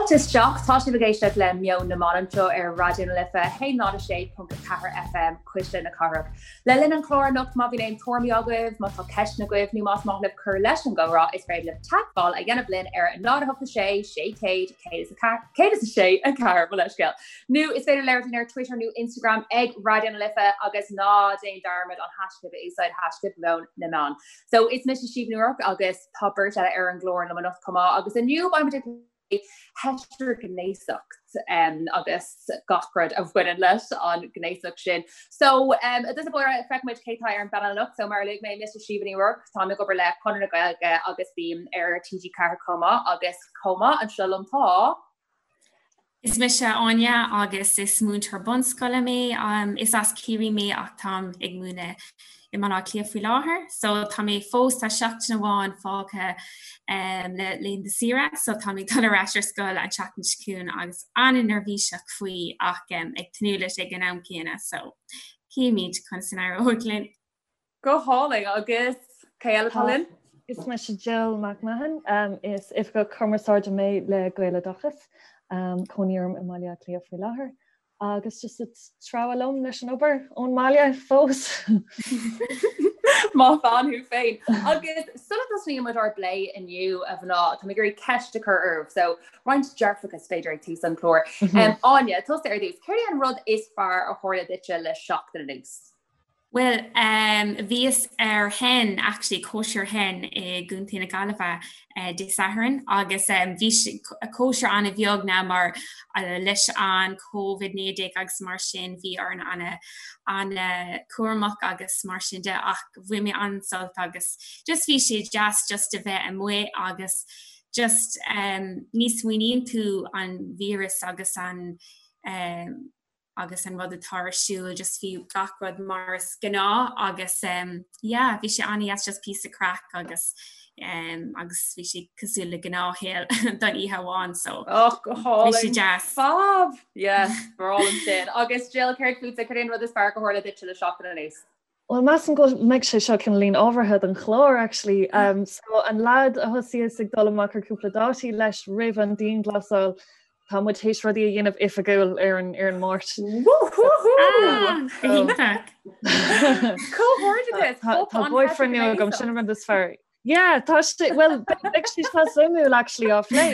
Fáilte isteach, tá sibh ag éisteacht le Meon na mBan anseo ar Raidió na Life 106.4 FM, Cuisle na Cathrach. Le linn an chláir anocht má bhíonn aon tuairimí agaibh, má tá ceisteanna agaibh nó más maith libh cur leis an gcomhrá, is féidir libh teagmháil a dhéanamh linn ar 0 8 6 600 106 4 mo leithscéal. Nó is féidir labhairt linn ar Twitter nó Instagram ag Raidió na Life agus ná déan dearmad an hashtag a úsáid hashtag Meon na mBan. So is mise Síomha Ní Ruairc agus tá beirt eile ar an gclár liom anocht chomh maith agus inniu beimid ag plé heitrighnéasacht agus gach rud a bhaineann leis an gnéasacht sin. So i dtús báire feicfimid cé tá ar an bpainéal anocht, so mar a luaigh mé mise Síomha Ní Ruairc, táim ag obair le Conradh na Gaeilge agus bím ar TG4 chomh maith agus chomh maith anseo liom tá. Is mise Áine agus is múinteoir bunscoile mé. Is as Ciarraí mé ach táim ag múineadh i mBaile Átha Cliath faoi láthair. So tá mé fós, tá seachtain amháin fágtha le laethanta saoire so tá mé ag dul ar ais ar scoil an tseachtain seo chugainn agus an-neirbhíseach faoi ach ag tnúth leis ag an am céanna so cífimid conas a n-éireoidh linn. Go hálainn agus cé eile atá linn? Is mise Jill McMahon, is Oifigeach Cumarsáide mé le Gaeloideachas. Cónaí orm i mBaile Átha Cliath faoi láthair agus just ag treabhadh liom leis an obair ón mbaile fós. Maith bean thú féin. Agus sula dtosnaíonn muid ár bplé inniu a mhná, tá mé ag iarraidh ceist a chur oraibh. So roinnt dearfachas b'fhéidir ag tús an chláir. Áine, tusa ar dtús, céard é an rud is fearr a tharla duitse le seachtain anuas? Bhuel, bhíos ar hen, actually, cóisir hen i gContae na Gaillimhe Dé Sathairn agus bhí cóisir an-bheag now mar leis an Covid-19 agus mar sin bhí orainn an-chúramach agus mar sin de ach bhain mé an-sult agus just bhí sé deas just a bheith amuigh agus just ní smaoiníonn tú an víreas agus an agus an rud atá ar siúl just bhí gach rud mar is gnáth agus um, yeah, bhí sé an-deas just píosa craic agus um, agus bhí sé cosúil le gnáthshaol don oíche amháin so oh, go hálainn. Bhí sé deas. Fab! Yes, breá liom sin. Agus Jill, céard fútsa, céard é an rud is fearr a tharla duitse le seachtain anuas? Well measaim go mbeidh sé seo cineáilín ábhartha don chlár actually. Um, so an lad a thosaíos ag dul amach ar cúpla dátaí leis roimh an dianghlasáil, tá muid théis rudaí a dhéanamh oifigiúil ar an ar an Máirt. Comhghairdeas! Tá boyfriend nua agam sin an rud is fearr. Yeah, tá sé well beidh sé seo suimiúil actually á phlé.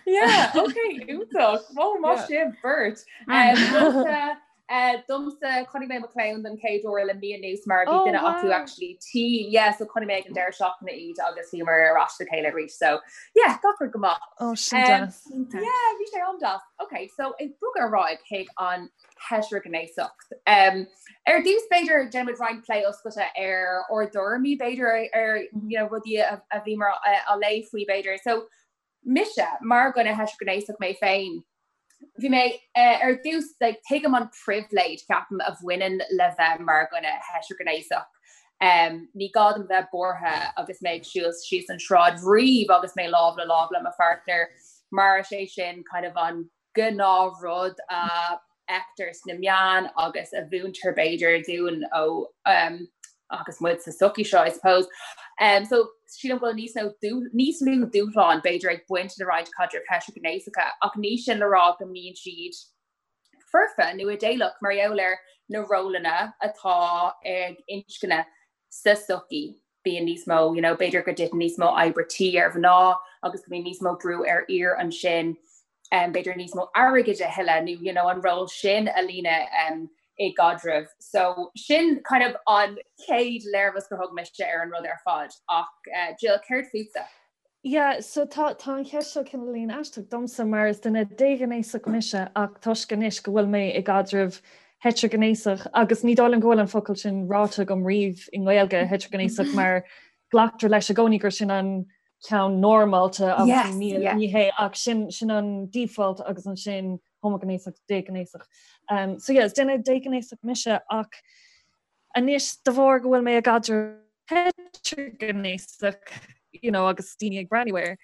Yeah, okay, iontach. Well, maith sibh beirt. Um, eh, domsa chonaic mé mo chlann don chéad uair le mí anuas mar bhí oh, duine acu actually tinn. Yeah, so chonaic mé ag an deireadh seachtaine iad agus bhíomar ar ais le chéile arís. So yeah, gach rud go maith. Oh, sin um, deas. Yeah, bhí sé an-deas. Okay, so ag bogadh ar aghaidh chuig an heitrighnéasacht. Ar dtús b'fhéidir déanfaimid roinnt plé oscailte ar ár dtuairimí b'fhéidir ar you know, rudaí a bhíomar á léamh faoi b'fhéidir. So mise mar dhuine heitrighnéasach mé féin, bhí mé ar dtús like, tuigim an pribhléid ceapaim a bhaineann le bheith mar dhuine heitrighnéasach. Um, ní gá dom bheith buartha agus mé ag siúl síos an sráid riamh agus mé lámh le lámh le mo pháirtnéir mar is é sin kind of an gnáthrud a fheictear sna meáin agus a mhúintear b'fhéidir dúinn ó agus muid sa tsochaí seo I suppose. Um, so sílim go bhfuil níos nó níos lú dúshlán b'fhéidir ag baint le roinnt caidrimh heitrighnéasacha ach ní sin le rá go mbíonn siad foirfe nó idéalach mar gheall ar na rólanna atá ag inscne sa tsochaí. Bíonn níos mó, you know, b'fhéidir go dtiteann níos mó oibre tí ar mhná agus go mbíonn níos mó brú ar fhir ansin, um, b'fhéidir níos mó airgid a thuilleamh nó, you know, an ról sin a líonadh um, i gcaidreamh. So sin kind of an chéad léirmheas gur thug mise ar an rud ar fad. Ach uh, Jill, céard fútsa? Yeah, so tá tá an cheist seo cineáilín aisteach domsa mar is duine déghnéasach mise ach toisc anois go bhfuil mé i gcaidreamh heitrighnéasach agus ní dóigh liom go bhfuil an focal sin ráite agam riamh i nGaeilge heitrighnéasach mar glactar leis i gcónaí gur sin an ceann normálta agus yes, ní, yeah. ní hé ach sin sin an default agus ansin homaighnéasach déghnéasach. Um, so yeah, is duine déghnéasach mise ach Anois, de bharr go bhfuil mé i gcaidreamh heitrighnéasach, you know, agus daoine ag breathnú air,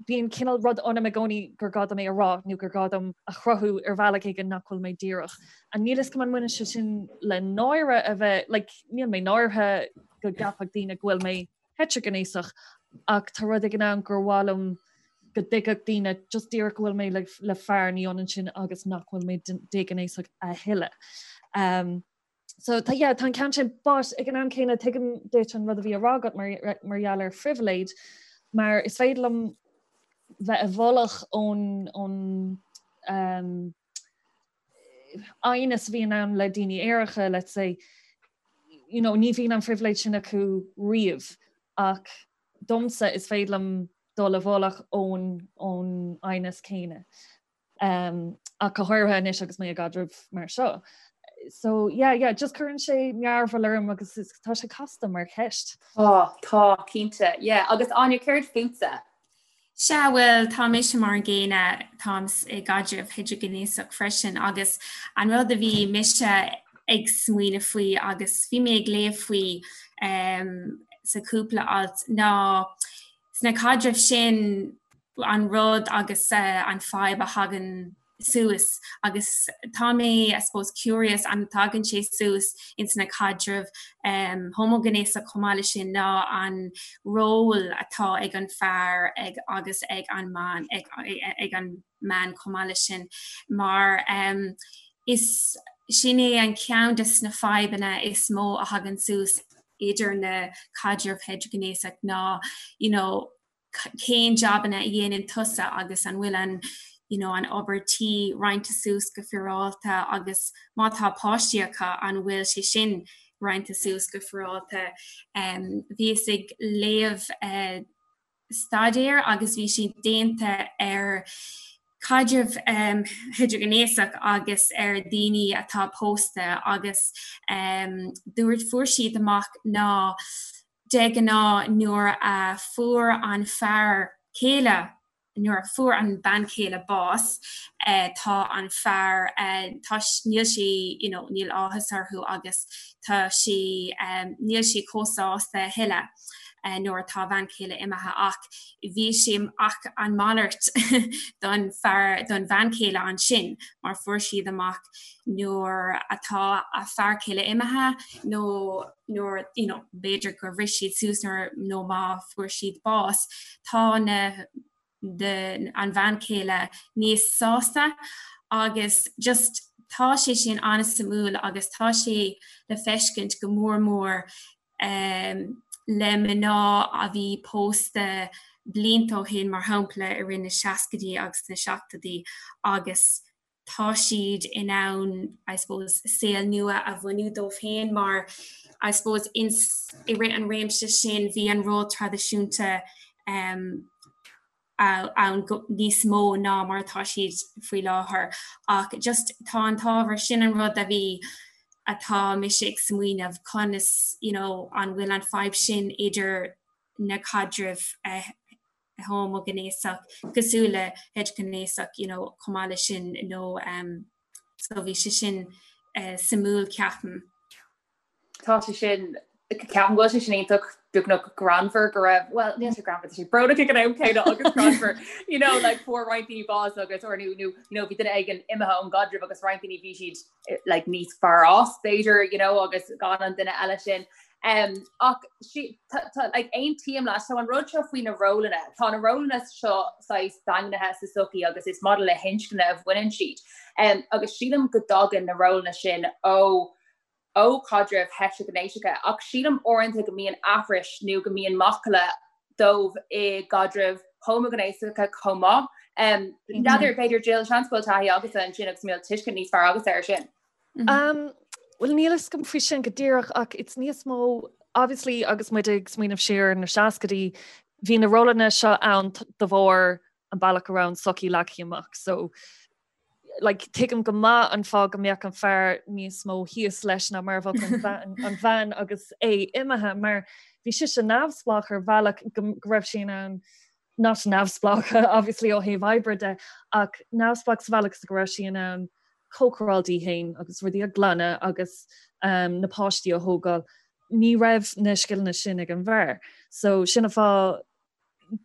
bíonn cineál rud ionam i gcónaí gur gá dom é a rá nó gur gá dom a chruthú ar bhealach éigin nach bhfuil mé díreach. And níl fhios agam an mbaineann sé sin le náire a bheith, like, níl mé náirithe go gceapfadh daoine go bhfuil mé heitrighnéasach ach tá rud éigin ann gur mhaith liom. go dtuigfeadh daoine just díreach go bhfuil mé le, le fear ní ionann sin agus nach bhfuil mé déghnéasach a thuilleadh. Um, so tá yeah, tá an ceann sin but ag an am céanna tuigim duit an rud a bhí á rá agat mar, mar gheall ar phribhléid mar is féidir liom bheith i bhfolach ón ón um, aighneas a bhíonn ann le daoine aeracha, let's say, you know, ní bhíonn an phribhléid sin acu riamh ach domsa is féidir liom dul i bhfolach ón ón aighneas céanna. Um, ach go háirithe anois agus mé i gcaidreamh mar seo. So yeah, yeah, just cuireann sé mearbhall orm agus is, tá sé casta mar cheist. Tá, tá, cinnte, yeah. Agus Áine, céard fútsa? Sea, bhuel, tá mise mar an gcéanna, táim i gcaidreamh heitrighnéasach freisin agus an rud a bhí mise ag smaoineamh faoi agus bhí mé ag léamh faoi um, sa cúpla alt ná sna caidrimh sin an rud agus uh, an fadhb a thagann suas agus tá mé I suppose curious an dtagann sé suas ins na caidrimh um, homaighnéasach chomh maith leis sin ná an ról atá ag an fear ag agus ag an mbean ag, ag an mbean chomh maith leis sin mar um, is sin é an ceann de na fadhbanna is mó a thagann suas idir na caidrimh heitrighnéasach ná you know, cén jabanna a dhéanann tusa agus an bhfuil an you know, an obair tí roinnte suas go féaráilte agus má tá páistí acu an bhfuil sé sin roinnte suas go féaráilte. Um, bhíos ag léamh uh, staidéar agus bhí sé déanta ar caidrimh um, heitrighnéasach agus ar daoine atá pósta agus um, dúirt fuair siad amach ná De ghnáth nuair a fuair an fear céile, nuair a fuair an bean chéile bás, tá an fear, tá, níl sé, you know, níl áthas orthu agus tá sé, níl sé chomh sásta a thuilleadh nuair atá a bhean chéile imithe ach bhí sé, ach an malairt don fear, don bhean chéile ansin mar fuair siad amach nuair atá a fear céile imithe nó nuair you know, b'fhéidir gur bhris siad suas nuair nó má fuair siad bás, tá na the, an bhean chéile níos sásta agus just tá sé sin an-suimiúil agus tá sé le feiscint go mór mór um, le mná a bhí pósta blianta ó shin mar shampla i rith na seascaidí agus na seachtóidí agus tá siad in ann, I suppose, saol nua a bhunú dóibh féin mar, I suppose, ins, i rith an réimse sin bhí an ról traidisiúnta um, ann go, níos mó ná mar atá siad faoi láthair. Ach just tá an t-ábhar sin an rud a bhí atá mise ag smaoineamh conas, you know, an bhfuil an fadhb sin idir na caidrimh uh, homaighnéasach cosúil le heitrighnéasach you know, chomh maith leis sin nó um, so bhí sé sin uh, suimiúil ceapaim. Tá sé sin ceapaim go bhfuil sé sin iontach beagnach greannmhar go raibh well níl sé greannmhar sé brónach ag an am céanna agus greannmhar you know like fuair roinnt daoine bás agus or nó nó you know bhí duine éigin imithe ón gcaidreamh agus roinnt daoine bhí siad eh, like níos fearr as b'fhéidir you know agus gan an duine eile sin Um, ach sí, tá, tá, like, aontaím leat, so an rud seo faoi na rólanna, tá na rólanna seo saghas daingnithe sa sochaí agus is maidir le hinscne a bhaineann siad. Um, agus sílim go dtagann na rólanna sin ó ó chaidrimh heitrighnéasacha, ach sílim uaireanta go mbíonn aithris nó go mbíonn macalla dóibh i gcaidrimh homaighnéasacha chomh maith. Um, N'fheadar, b'fhéidir Jill, seans go bhfuil taithí agatsa ansin agus go bhfuil tuiscint níos fearr agatsa air sin. Um, Well níl a fhios agam faoi sin go díreach ach it's níos mó obviously agus muid ag smaoineamh siar ar na seascaidí, bhí na rólanna seo ann de bharr an bealach a raibh an sochaí leagtha amach. So like, tuigim go maith an fáth go mbeadh an fear níos mó thíos leis ná mar a bheadh an bhean, an bhean agus é imithe mar bhí sise neamhspleách ar bhealach go, go raibh sí in ann not neamhspleách obviously ó thaobh oibre de ach neamhspleách sa bhealach is go raibh sí in ann cócaráil di féin agus rudaí a ghlanadh agus um, na páistí a thógáil. Ní raibh na scileanna sin ag an bhfear. So sin an fáth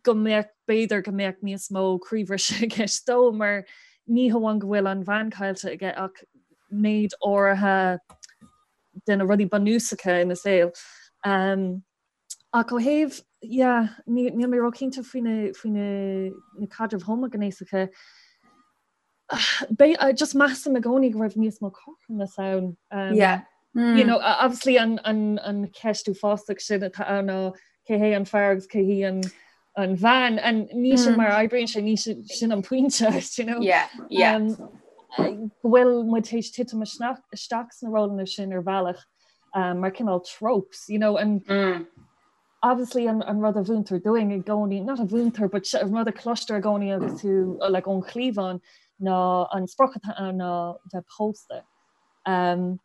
go mbeadh b'fhéidir go mbeadh níos mó croíbhriseadh i gceist dó mar ní hamháin go bhfuil an bhean caillte aige ach méid áirithe de na rudaí bunúsacha ina saol. Um, Ach ó thaobh, yeah, níl mé róchinnte faoi na, faoi na, na caidrimh homaighnéasacha. Beidh, just measaim i gcónaí go raibh níos mó cothromas ann. Um, yeah. Mm. You know, obviously an, an, an cheist uafásach sin atá ann ná cé hé an fear agus cé hí an, an bhean and ní sin mm. mar oibríonn sé ní sin an pointe you know? yeah, yeah. Um, go bhfuil muid théis titim isteach sna rólanna sin ar bhealach um, mar cineál tropes, you know, and mm. obviously an, an rud a mhúintear dúinn i gcónaí, not a mhúintear, but an rud a cloistear i gcónaí agus tú uh, like, ón chliabhán ná an sprioc atá ann ná bheith pósta. Um,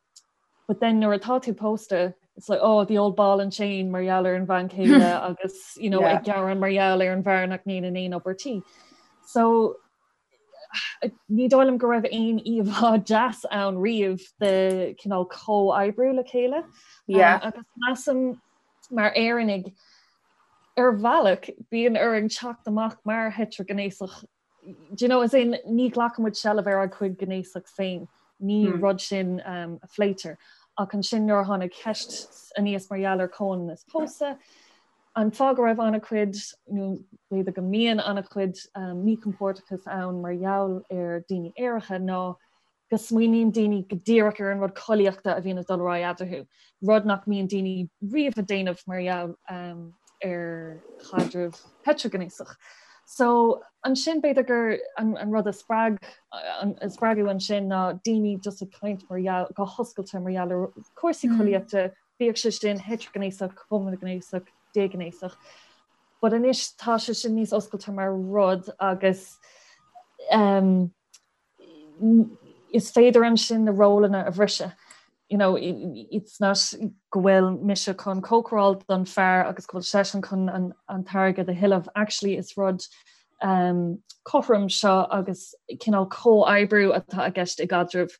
but then nuair atá tú pósta, it's like oh the old ball and chain mar gheall ar an bhean chéile agus you know, yeah. ag gearán mar gheall ar an bhfear nach ndéanann aon obair tí. So Ní dóigh liom go raibh aon íomhá deas ann riamh de cineál comhoibriú le chéile. Yeah. Agus measaim mar Éireannaigh ar bhealach bíonn orainn teacht amach mar heitrighnéasach. Do you know, as in ní ghlacann muid seilbh ar ár gcuid gnéasacht féin. Ní hmm. rud sin um, a phléitear. Ach ansin nuair a tháinig ceist aníos mar gheall ar comhionannas pósadh, An fáth go raibh an-chuid, nó b'fhéidir go mbíonn an-chuid míchompordachas ann mar gheall ar daoine aeracha ná go smaoiníonn daoine go díreach ar an rud collaíochta a bhíonn ag dul ar aghaidh eadarthu, rud nach mbíonn daoine riamh ag déanamh mar gheall ar chaidreamh heitrighnéasach. So ansin b'fhéidir gur an rud a spreag, a spreagadh ansin ná daoine just ag caint mar gheall, go hoscailte mar gheall ar chúrsaí collaíochta, Bíodh sé sin heitrighnéasach, homaighnéasach, déghnéasach. But anois tá sé sin níos oscailte mar rud agus um, is féidir ansin na rólanna a bhriseadh. You know, it's not go bhfuil mise chun cócaráil don fear agus go bhfuil seisean chun an, an t-airgead a thuilleamh. Actually is rud um, cothrom seo agus cineál comhoibriú atá i gceist i gcaidreamh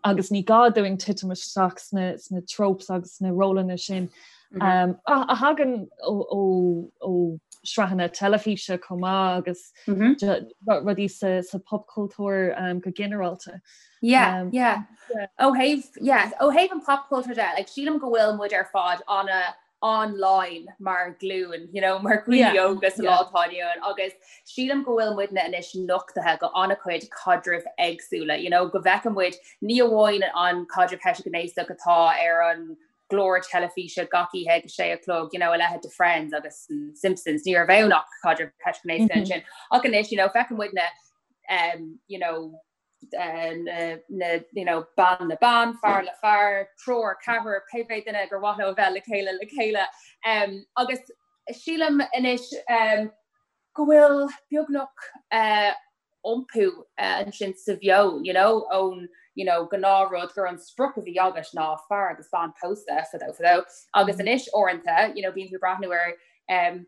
agus ní gá dúinn titim isteach sna, sna tropes agus sna rólanna sin mm -hmm. um, a, a thagann ó, ó, ó sraitheanna teilifíse chomh maith agus mm -hmm. rudaí sa, sa popchultúr um, go ginearálta. Yeah, um, yeah. yeah. Ó thaobh yeah, ó thaobh an popchultúr de, like, sílim go bhfuil muid ar fad ana online mar ghlúin, you know, mar dhaoine óga sa lá atá inniu ann agus sílim go bhfuil muidne anois nochtaithe go an-chuid caidrimh éagsúla, you know, go bhfeiceann muid ní amháin an caidreamh heitrighnéasach atá ar an gclár teilifíse gach oíche ag a sé a chlog, you know, a leithéid de Friends agus Simpsons, ní raibh ann ach caidreamh heitrighnéasach mm -hmm. ansin. Ach anois, you know, feiceann muidne um, you know, na you know, bean le bean, fear le fear, triúr, ceathrar, pé bith duine gur mhaith leo a bheith le chéile le chéile. Um, agus sílim anois um, go bhfuil beagnach uh, iompú uh, ansin sa mheon, you know, ón you know, gnáthrud gur an sprioc a bhí agat ná fear agus bean pósta fadó fadó. Agus mm. anois uaireanta, you know, bíonn tú ag breathnú ar um,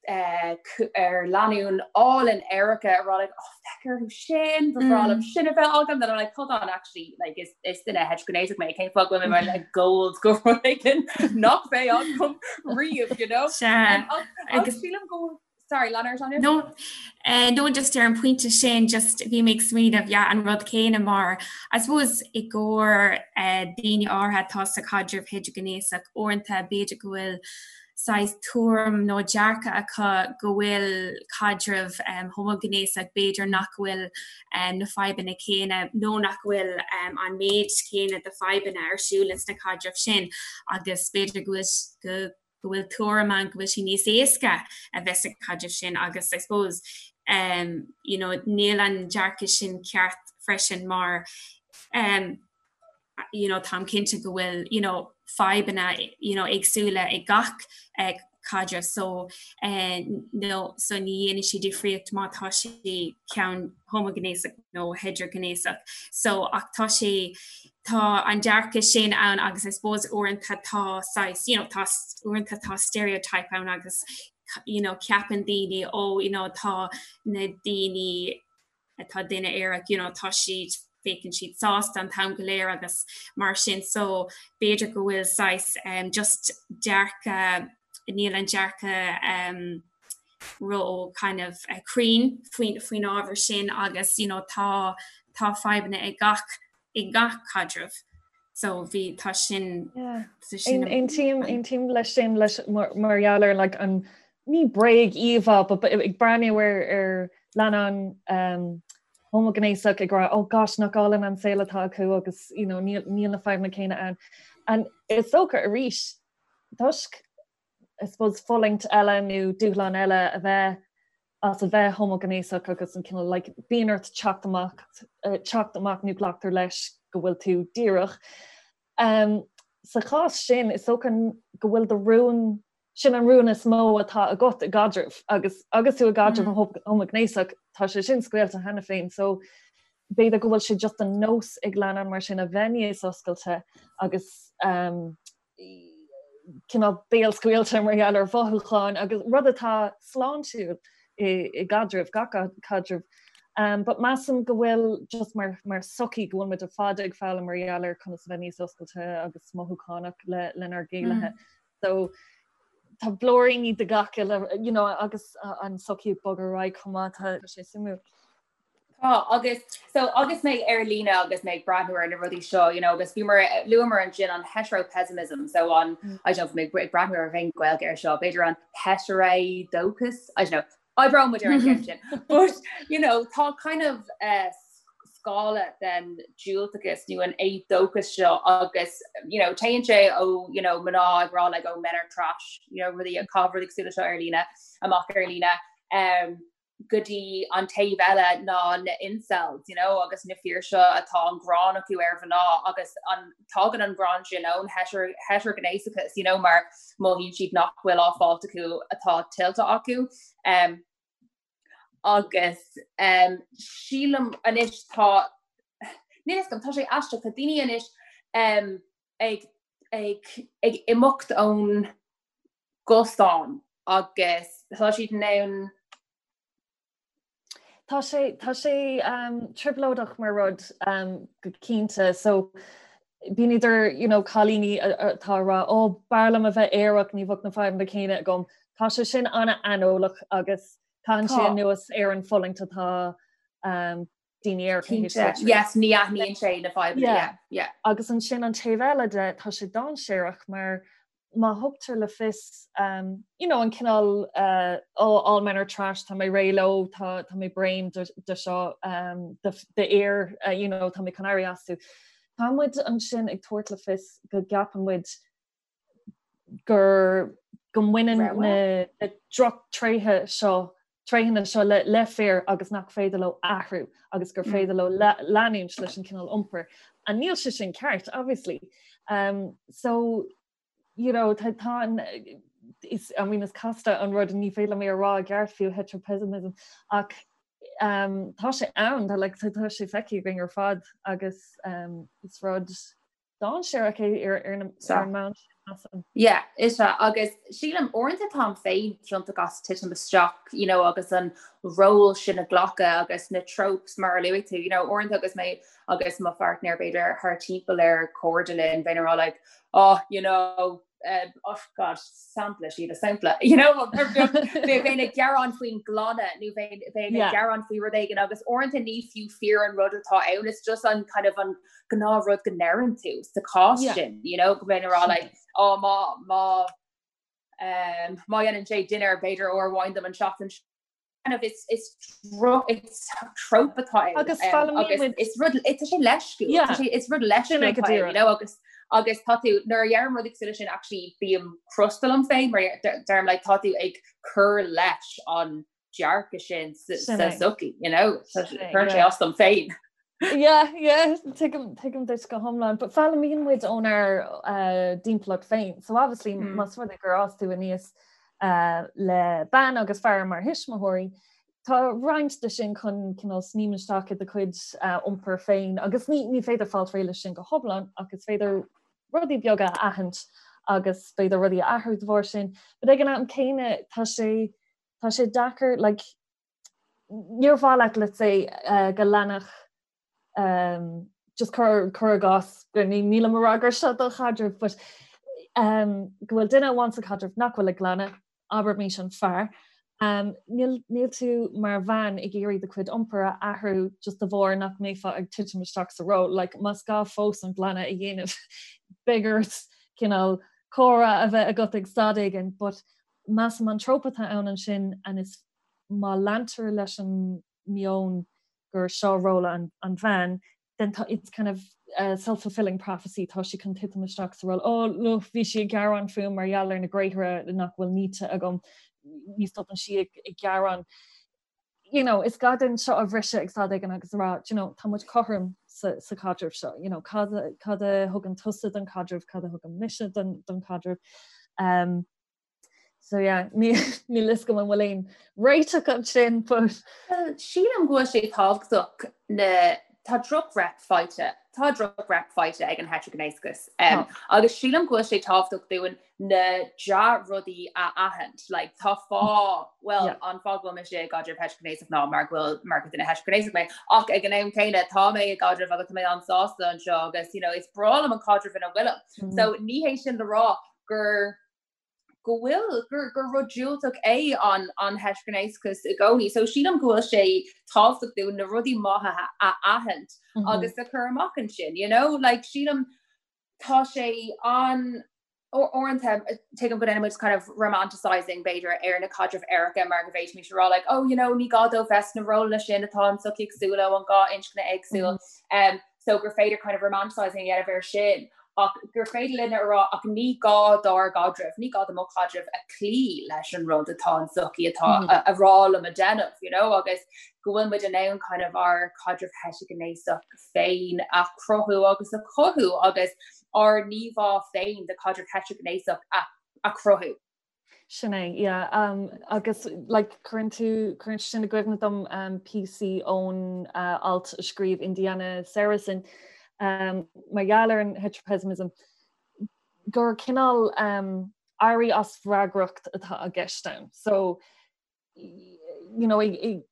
ar lánúin álainn aeracha a rá like oh féach orthu sin ba bhreá liom sin a bheith agam then I'm like hold on actually like is is duine heitrighnéasach mé cén fáth go bhfuil mé like gold go rud éigin nach mbeidh agam riamh you know agus sílim go sorry lean ort Anya? No eh, no just ar an pointe sin just bhí mé ag smaoineamh yeah, an rud céanna mar I suppose i gcomhair eh, daoine áirithe atá sa chaidreamh heitrighnéasach uaireanta b'fhéidir go bhfuil saghas tuairim nó dearcadh acu go bhfuil caidreamh homaighnéasach, b'fhéidir nach bhfuil na fadhbanna céanna nó nach bhfuil an méid céanna de fadhbanna ar siúl ins na caidrimh sin agus b'fhéidir go bhfuil go bhfuil tuairim ann go bhfuil sé níos éasca a bheith sa chaidreamh sin agus I suppose um, you know, níl an dearcadh sin ceart freisin mar um, you know, táim cinnte go bhfuil, you know, fadhbanna, you know, éagsúla ag gach eh, caidreamh so eh, no, so ní dhéanann sé difríocht má tá sé ceann homaighnéasach nó heitrighnéasach. So ach tá sé tá an dearcadh sin ann agus I suppose uaireanta tá saghas, you know, tá uaireanta tá stereotype ann agus you know, ceapann daoine ó oh, you know, tá na daoine atá duine aerach you know tá siad féachann siad sásta an t-am go léir agus mar sin so b'fhéidir go bhfuil saghas um, just dearcadh níl an dearcadh um, ró kind of uh, cruinn faoin faoin ábhar sin agus you know tá tá fadhbanna ag gach i gach caidreamh. So bhí tá sin Aontaím aontaím leis sin leis mar gheall ar like an ní bréag íomhá but ag breathnú ar ar leannán um, homaighnéasach ag rá oh gosh nach álainn an saol atá acu agus you know, níl níl na fadhbanna céanna ann. And is dócha arís toisc I suppose fulaingt eile nó dúshlán eile a bheith as a bheith homaighnéasach agus an cineál like bíonn ort teacht amach teacht amach nó glactar leis go bhfuil tú díreach. Um, sa chás sin is dócha go bhfuil do rún sin an rún is mó atá agat i gcaidreamh agus agus tú i gcaidreamh mm. homaighnéasach tá sé sin scaoilte cheana féin so b'fhéidir go bhfuil sé just an nós ag leannán mar sin a bheith níos oscailte agus um, cineál béalscaoilte mar gheall ar mhothúcháin agus rud atá sláintiúil i gcaidreamh, gach caidreamh. Um, but measaim go bhfuil just mar, mar sochaí go bhfuil muid ar fad ag foghlaim mar gheall ar conas a bheith níos oscailte agus mothúchánach le, lenár gcéilithe. Mm. So tá blúiríní de gach uile, you know, agus an sochaí ag bogadh ar aghaidh chomh maith, tá sé suimiúil. Tá, agus so agus mé ar líne agus mé ag breathnú ar na rudaí seo, you know, agus bhíomar luamar ansin an hetero-pessimism, so an mm. I don't know, mé ag breathnú ar bhonn Gaeilge ar seo, b'fhéidir an heiteridóchas, I don't know, oibreoidh muid ar an gceann sin. But, you know, tá kind of uh, scála den diúltachas nó an éadóchas seo agus you know, téann sé ó you know, mná ag rá like, oh, men are trash, you know, rudaí ag caitheamh rudaí cosúil leis seo ar líne, amach ar líne. Um, go dtí an taobh eile ná na incels, you know, agus na fir seo atá an gráin acu ar mhná agus an tagann an gráin sin ón heitrighnéasachas, you know, mar mothaíonn siad nach bhfuil á fáilt acu atá tuillte acu. Um, agus um, sílim anois tá níl a fhios agam tá sé aisteach tá daoine anois um, ag, ag, ag imeacht ón gcosán agus tá siad in ann. Tá sé tá sé um, trioblóideach mar rud um, go cinnte so bíonn idir you know, cailíní atá ag rá ó oh, b'fhearr liom a bheith aerach ní bheadh na fadhbanna céanna agam. Tá sé sin an-aineolach agus caitheann sé anuas ar an fulaingt atá um, daoine aeracha Cinnte, yes, ní aithníonn sé na fadhbanna, yeah, yeah. Agus ansin an taobh eile de, tá sé dainséarach mar má thugtar le fios, um, you know, an cineál uh, oh, all men are trash, tá mé réidh leo, tá, tá mé bréan de, de seo, um, de, de fhir, uh, you know, tá mé chun éirí astu. Tá muid ansin ag tabhairt le fios go gceapann muid gur go mbaineann na drochtréithe seo tréitheanna seo le le fir agus nach féidir leo athrú agus gur féidir leo leanúint leis an cineál iompair. And níl sé sin ceart, obviously. Um, so, you know, tá tá an is, I mean, is casta an rud ní féidir liom é a rá i gceart fiú heteropessimism ach um, tá sé ann tá like, tá sé feicthe againn ar fad agus um, is rud dainséarach é ar ar an mbonn sin, measaim. Yeah, is ea, agus sílim uaireanta táim féin ciontach as titim isteach, you know, agus an ról sin a ghlacadh agus na tropes mar a luaigh tú, you know, uaireanta agus mé agus mo pháirtnéir b'fhéidir thar timpeall ar cairde linn, bheinn ag rá like, oh, you know, uh, oh god, sampla sí sampla, you know, bheinn ag gearán faoin nglanadh nó bheinn ag gearán faoi rud éigin agus uaireanta ní fiú fíor an rud atá ann, it's just an kind of an gnáthrud go ndeireann tú sa chás sin, you know, go mbeinn ag rá like, oh, má má um, má dhéanann sé dinnéar b'fhéidir uair amháin dom an seachtain kind of it's it's it's trope atá ann. Agus foghlaimíonn muid is rud tá sé leisciúil Yeah. tá sé is rud leisciúil Sin é go atá ann, díreach. you know, agus agus tá tú nuair a dheirim rud cosúil leis sin actually bím crosta liom féin mar deirim like tá tú ag cur leis an dearcadh sin sa Sin sa é. sochaí you know Sin é, cuireann sé yeah. as dom féin. Yeah, yeah, tuigim tuigim duit go hiomlán, but foghlaimíonn muid ónár uh, dtimpeallacht féin. So obviously mm. más rud é gur fhás tú aníos uh, le bean agus fear mar thuismitheoirí, tá roinnt de sin chun cineál sníomh isteach i do chuid uh, iompar féin agus ní, ní féidir fáil réidh leis sin go hiomlán ach is féidir rudaí beaga a aithint agus b'fhéidir rudaí a athrú de bharr sin. But ag an am céanna tá sé tá sé deacair like, níor mhaith leat let's say uh, go leanfadh um, just cur cur i gcás go ní nílim ag rá gur seo do chaidreamh but um, go bhfuil duine amháin sa chaidreamh nach bhfuil ag glanadh abraimis an fear. Níl níl tú mar bhean ag iarraidh do chuid iompair a athrú just de bharr nach mbeifeá ag titim isteach sa ról. Like, más gá fós an glanadh a dhéanamh beidh ort cineál comhrá a bheith agat ag stad éigin, but measaim an trope atá ann ansin and is má leantar leis an meon gur seo ról an an bhean, then tá it's kind of a self-fulfilling prophecy, tá sí chun titim isteach sa ról, oh look bhí sí ag gearán fúm mar gheall ar na gréithre nach bhfuil nite agam, ní stopann sí ag ag gearán. You know, is gá dúinn seo a bhriseadh ag stad éigin agus a rá, you know, tá muid cothrom sa, sa chaidreamh seo, you know, cad, cad a thugann tusa don chaidreamh, cad a thugann mise don, don chaidreamh. Um, So yeah, níl fhios agam an bhfuil aon réiteach ansin, but. Well, sílim go bhfuil sé tábhachtach na tá droch-rep faighte, tá droch-rep faighte ag an heitrighnéasachas. Um, agus sílim go bhfuil sé tábhachtach dúinn na dea-rudaí a aithint. Like, tá fáth, well, yeah. an fáth go bhfuil mise i gcaidreamh heitrighnéasach ná mar go bhfuil mar gur duine heitrighnéasach mé. Ach ag an am céanna tá mé i gcaidreamh agus tá mé an-sásta anseo agus you know, is breá liom an caidreamh ina bhfuilim. Mm -hmm. So ní hé sin le rá gur go bhfuil gur gur rud diúltach é an an heitrighnéasachas i gcónaí. So sílim go bhfuil sé tábhachtach dúinn na rudaí maithe a aithint mm -hmm. agus a chur amach ansin, you know? Like sílim tá sé an uaireanta tuigim go ndéanann muid kind of romanticizing b'fhéidir ar na caidrimh aeracha mar go bhféadfaimis a rá like oh you know ní gá dóibh bheith sna rólanna sin atá an tsochaí ag súil leo an dá inscne éagsúil mm -hmm. um, so gur féidir kind of romanticizing a dhéanamh air sin ach gur féidir linn a rá ach ní gá dár gcaidreamh, ní gá do mo chaidreamh a cloí leis an rud atá an tsochaí atá mm -hmm. a rá liom a dhéanamh, you know, agus go bhfuil muid in ann kind of ár caidreamh heitrighnéasach féin a chruthú agus a chothú agus ár n-íomhá féin de chaidreamh heitrighnéasach a, a chruthú. Sin é, yeah. Um, agus like, cuireann tú cuireann sin i gcuimhne dom um, píosaí ón uh, alt a scríobh Indiana Seresin um, mar gheall ar an heteropessimism gur cineál um, éirí as freagracht atá i gceist ann. So you know, a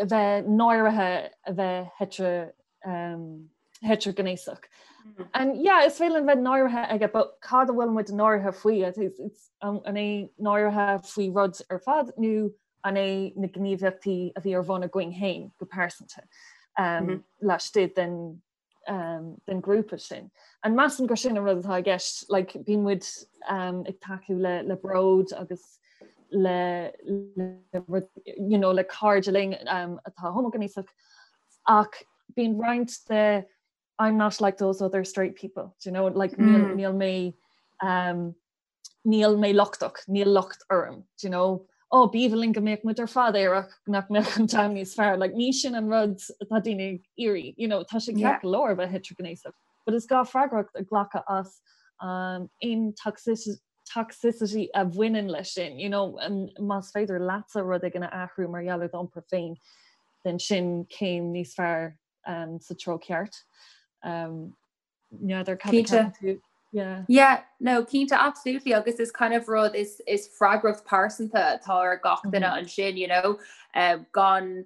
bheith náirithe a bheith heitre um, heitrighnéasach. Mm. And yeah, is féidir linn bheith náirithe aige, but cad a bhfuil muid náirithe faoi? It's, it's, um, an é náirithe faoi rud ar fad nó an é na gníomhaíochtaí a bhí ar bun againn féin go pearsanta um, mm -hmm. laistigh den um, den grúpa sin. And measaim gur sin an rud atá i gceist, like, bíonn muid um, ag tacú le, le bród agus le, le, you know, le cairde linn um, atá homaighnéasach ach bíonn roinnt de I'm not like those other straight people, do you know, like mm. níl, níl mé um, níl mé lochtach, níl locht orm, do you know, oh b'aoibhinn linn go mbeadh muid ar fad aerach nach mbeadh an domhan níos fearr, like ní sin an rud atá daoine ag iarraidh, you know, tá sé ceart go leor a bheith heitrighnéasach, but is gá freagracht a ghlacadh as um, aon toxicity toxicity a bhaineann leis sin, you know, um, más féidir leatsa rud éigin a athrú mar gheall ar d'iompar féin, then sin céim níos fearr um, sa treo ceart. Um, N'fheadar cad a ceapann tú. Yeah. Yeah, no, cinnte absolutely agus is kind of rud is is freagracht pearsanta atá ar gach duine mm -hmm. ansin, you know, um, gan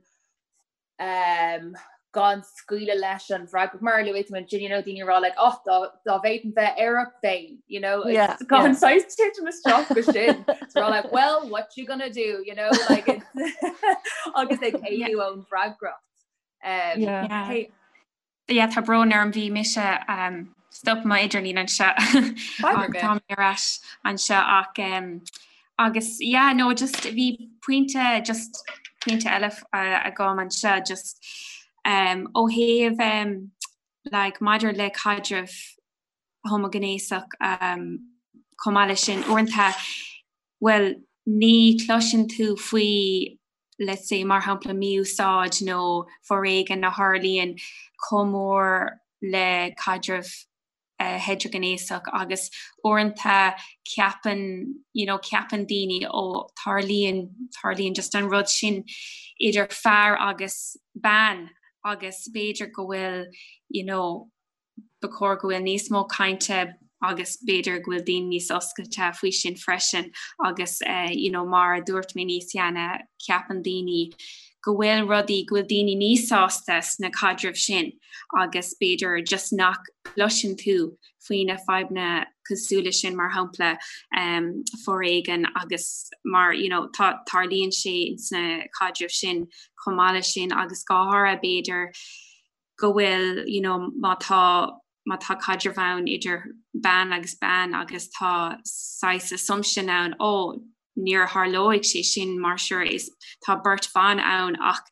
um, gan scaoileadh leis an bhfreagracht mar luaigh tú ansin, you know, daoine rá like, oh, dá dá bhféadfainn bheith aerach bheinn, you know, yeah, gan yeah. saghas titim isteach go sin. So like, well, what you gonna do, you know, like it's agus ag éalú ón bhfreagracht. Um, yeah. Yeah. Hey, Yeah, tá brón orm bhí mise um, stop mo idirlíon anseo tá mé ar ais anseo ach um, agus yeah, no, just bhí pointe just pointe eile uh, agam anseo just um, ó thaobh um, like, maidir le caidreamh homaighnéasach um, chomh maith leis sin uaireanta well ní chloiseann tú faoi let's say, mar shampla, mí-úsáid nó foréigean a tharlaíonn chomh mór le caidreamh heitrighnéasach agus uaireanta ceapann, you know, ceapann daoine ó tarlaíonn, tarlaíonn just an rud sin idir fear agus bean agus b'fhéidir go bhfuil, you know, ba chóir go bhfuil níos mó cainte agus b'fhéidir go bhfuil daoine níos oscailte faoi sin freisin agus you know mar a dúirt mé níos cheana ceapann daoine go bhfuil rudaí go bhfuil daoine níos sásta sna caidrimh sin agus b'fhéidir just nach gcloiseann tú faoi na fadhbanna. cosúil leis sin mar shampla um, foréigean agus mar you know, tá tarlaíonn sé sna caidrimh sin chomh maith leis sin agus go háirithe b'fhéidir go bhfuil you know, má tá má tá caidreamh ann idir bean agus bean agus tá saghas assumption ann ó níor tharlóidh sé sin mar sure is tá beirt bhan ann ach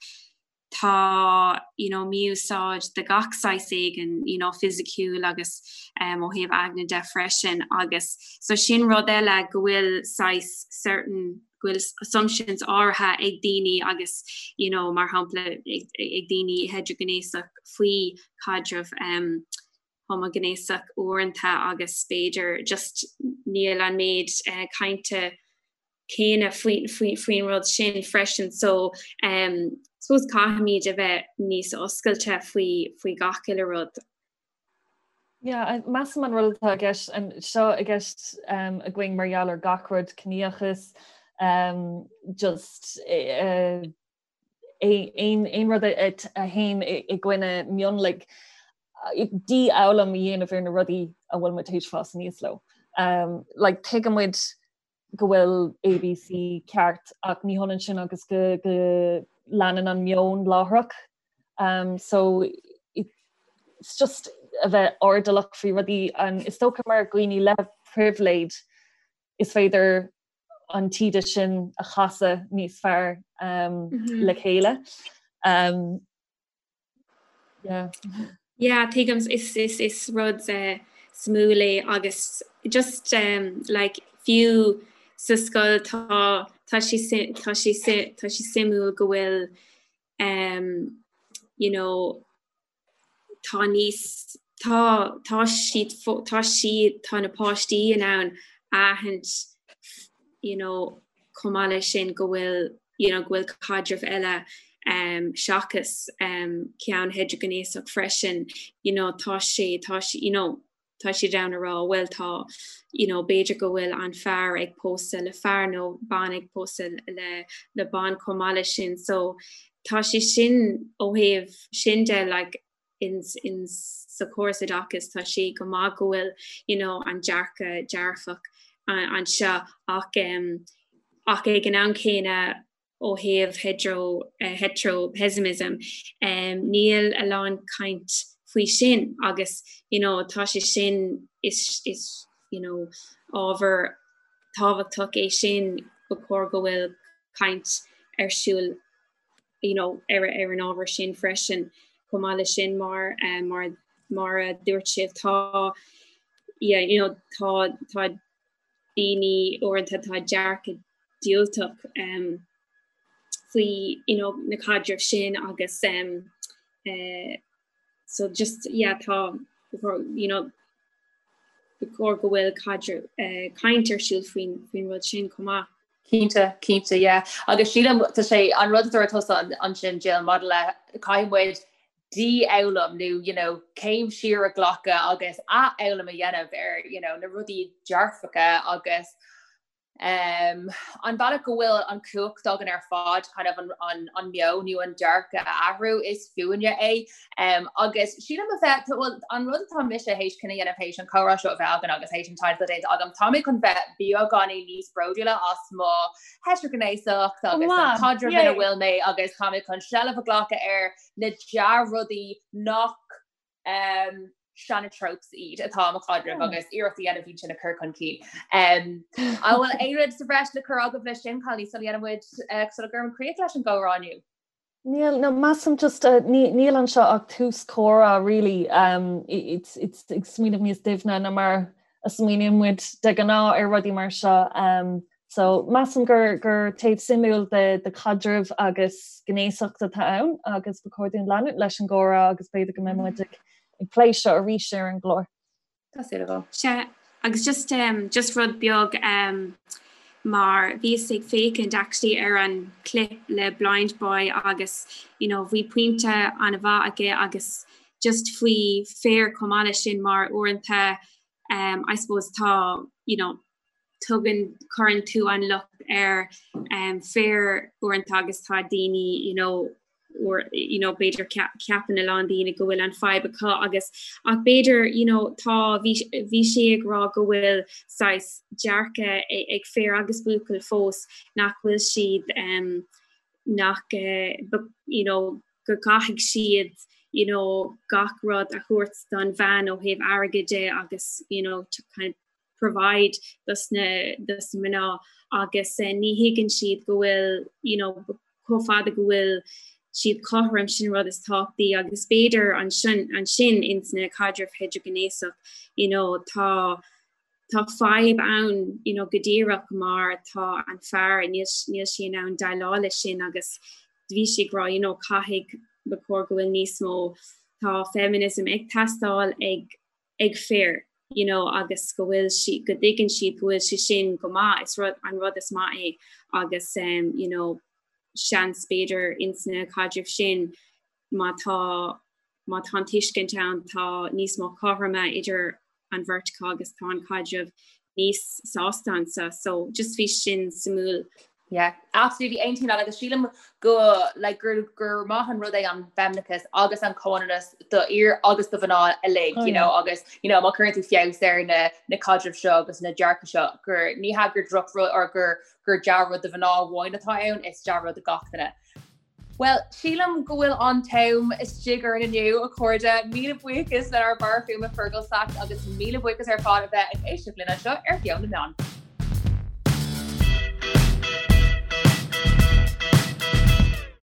tá you know mí-úsáid de gach saghas éigin you know fisiciúil agus um, ó thaobh aigne de freisin agus so sin rud eile go bhfuil saghas certain go bhfuil assumptions áirithe ag daoine agus you know mar shampla ag, ag daoine heitrighnéasach faoi caidreamh um, homaighnéasach uaireanta agus b'fhéidir just níl an méid uh, cainte céanna faoin rud sin freisin so um, suppose caithfimid a bheith níos oscailte faoi faoi gach uile rud. Yeah, measaim an rud atá i gceist seo i gceist um, againn mar gheall ar gach rud ciníochas um, just uh, aon rud a théann i gcoinne mionlaigh dífhoghlaim a dhéanamh ar na rudaí a bhfuil muid théis fás aníos leo. Um, like, tuigeann muid go bhfuil ABC ceart ach ní hionann sin agus go, go leanann an meon láithreach. Um, so it's just a bheith airdeallach faoi rudaí an is dócha mar dhaoine le pribhléid is féidir an taoide sin a chasadh níos fearr um, mm -hmm. le chéile. Um, yeah. Yeah, tuigim is, is, is rud uh, suimiúil é agus just um, like, fiú sa scoil tá tá sé tá sé tá sé suimiúil go bhfuil um, you know, tá níos tá tá siad tá siad tá na páistí in ann aithint you know chomh maith leis sin go bhfuil you know go bhfuil caidreamh eile um, seachas um, ceann heitrighnéasach freisin you know tá sé tá sé you know tá siad in ann a rá bhuel tá you know b'fhéidir go bhfuil an fear ag pósadh le fear nó bean ag pósadh le le bean chomh maith leis sin so tá sé sin ó thaobh sin de like in in sa chóras oideachais tá sé go maith go bhfuil you know an dearcadh dearfach anseo ach um, ach ag an am céanna ó thaobh hetero-pessimism, níl a lán caint faoi sin agus you know tá sé sin is is you know ábhar tábhachtach é sin ba chóir go bhfuil caint ar siúl you know ar ar an ábhar sin freisin chomh maith leis sin mar mar mar a dúirt sibh tá yeah you know tá tá daoine uaireanta tá dearcadh diúltach um, faoi you know, na caidrimh sin agus um, uh, so just yeah, tá you know, ba chóir go bhfuil caidreamh uh, caint ar siúl faoin faoin rud sin chomh maith. Cinnte, cinnte, yeah. Agus sílim tá sé an rud a dúirt tusa ansin Jill maidir le caithfidh muid dífhoghlaim nó you know céim siar a ghlacadh agus athfhoghlaim a dhéanamh ar you know na rudaí dearfacha agus um, an bealach go bhfuil an cumhacht againn ar fad kind of an, an, an meon nó an dearcadh a athrú is fúinne é. Um, agus sílim a bheith well, an rud atá mise théis cinneadh a dhéanamh théis an comhrá seo a bheith againn agus théis an taighde atá déanta agam, tá mé chun bheith beagáinín níos bródúla as mo heitrighnéasacht agus an caidreamh ina bhfuil mé agus tá mé chun seilbh a ghlacadh ar na dea-rudaí nach um, seana-tropes iad atá i mo chaidreamh agus iarracht a dhéanamh iad sin a chur chun cinn. Um, an bhfuil aon rud sa bhreis le cur agaibh leis sin cailíní sula dhéanann muid uh, sula gcuireann críoch leis an gcomhrá inniu? Níl, no, measaim just uh, níl anseo ach tús comhrá really um, it's, it's ag smaoineamh níos doimhne ná mar a smaoiníonn muid de ghnáth ar rudaí mar seo. Um, So, measaim gur gur taobh suimiúil de de chaidreamh agus gnéasacht atá ann agus ba chóir dúinn leanúint leis an gcomhrá agus b'fhéidir go mbeidh muid ag ag plé seo arís ar an gclár. Tá súil agam. Sea, agus just um, just rud beag um, mar bhíos ag féachaint actually ar an clip le Blindboy agus you know, bhí pointe an-mhaith aige agus just faoi fir chomh maith leis sin mar uaireanta um, I suppose tá you know, tugann, cuireann tú an locht ar um, fir uaireanta agus tá daoine you know, Or you know b'fhéidir ceapann a lán daoine go bhfuil an fadhb acu agus ach b'fhéidir you know tá bhí bhí sé ag rá go bhfuil saghas dearcadh ag fir agus buachaill fós nach bhfuil siad um, nach uh, you know go gcaithfidh siad you know gach rud a thabhairt don bhean ó thaobh airgid de agus you know to kind of provide dos na dos na mná agus eh, ní thuigeann siad go bhfuil you know, chomh fada go bhfuil siad cothrom sin rud is tábhachtaí agus b'fhéidir ansin ansin ins na caidrimh heitrighnéasach you know, tá tá fadhb ann you know, go díreach mar tá an fear níl níl sé in ann déileáil leis sin agus bhí sé ag rá you know, caithfidh ba chóir go bhfuil níos mó tá feminism ag teastáil ag ag fir you know agus go bhfuil sí go dtuigeann siad go bhfuil sé sin go maith is rud an rud is maith é agus um, you know seans b'fhéidir ins na caidrimh sin má tá má tá an tuiscint ann tá níos mó cothroime idir an bheirt acu agus tá an caidreamh níos sásta ansa so just bhí sin suimiúil Yeah, absolutely aontaím leat agus sílim go like gur gur maith an rud é an feimineachas agus an comhionannas do fhir agus do mhná uilig oh, you know agus you know má chuireann tú feabhas ar na na caidrimh seo agus na dearcadh seo gur ní hea gur drochrud or gur gur dea-rud do mhná amháin atá ann is dea-rud do gach duine. Well, sílim go bhfuil an t-am istigh orainn inniu, a chairde. Míle buíochas lenár bhfear fuaime Fergal Sachs agus míle buíochas ar fad a bheith ag éisteacht linn anseo ar Mheon na Meán.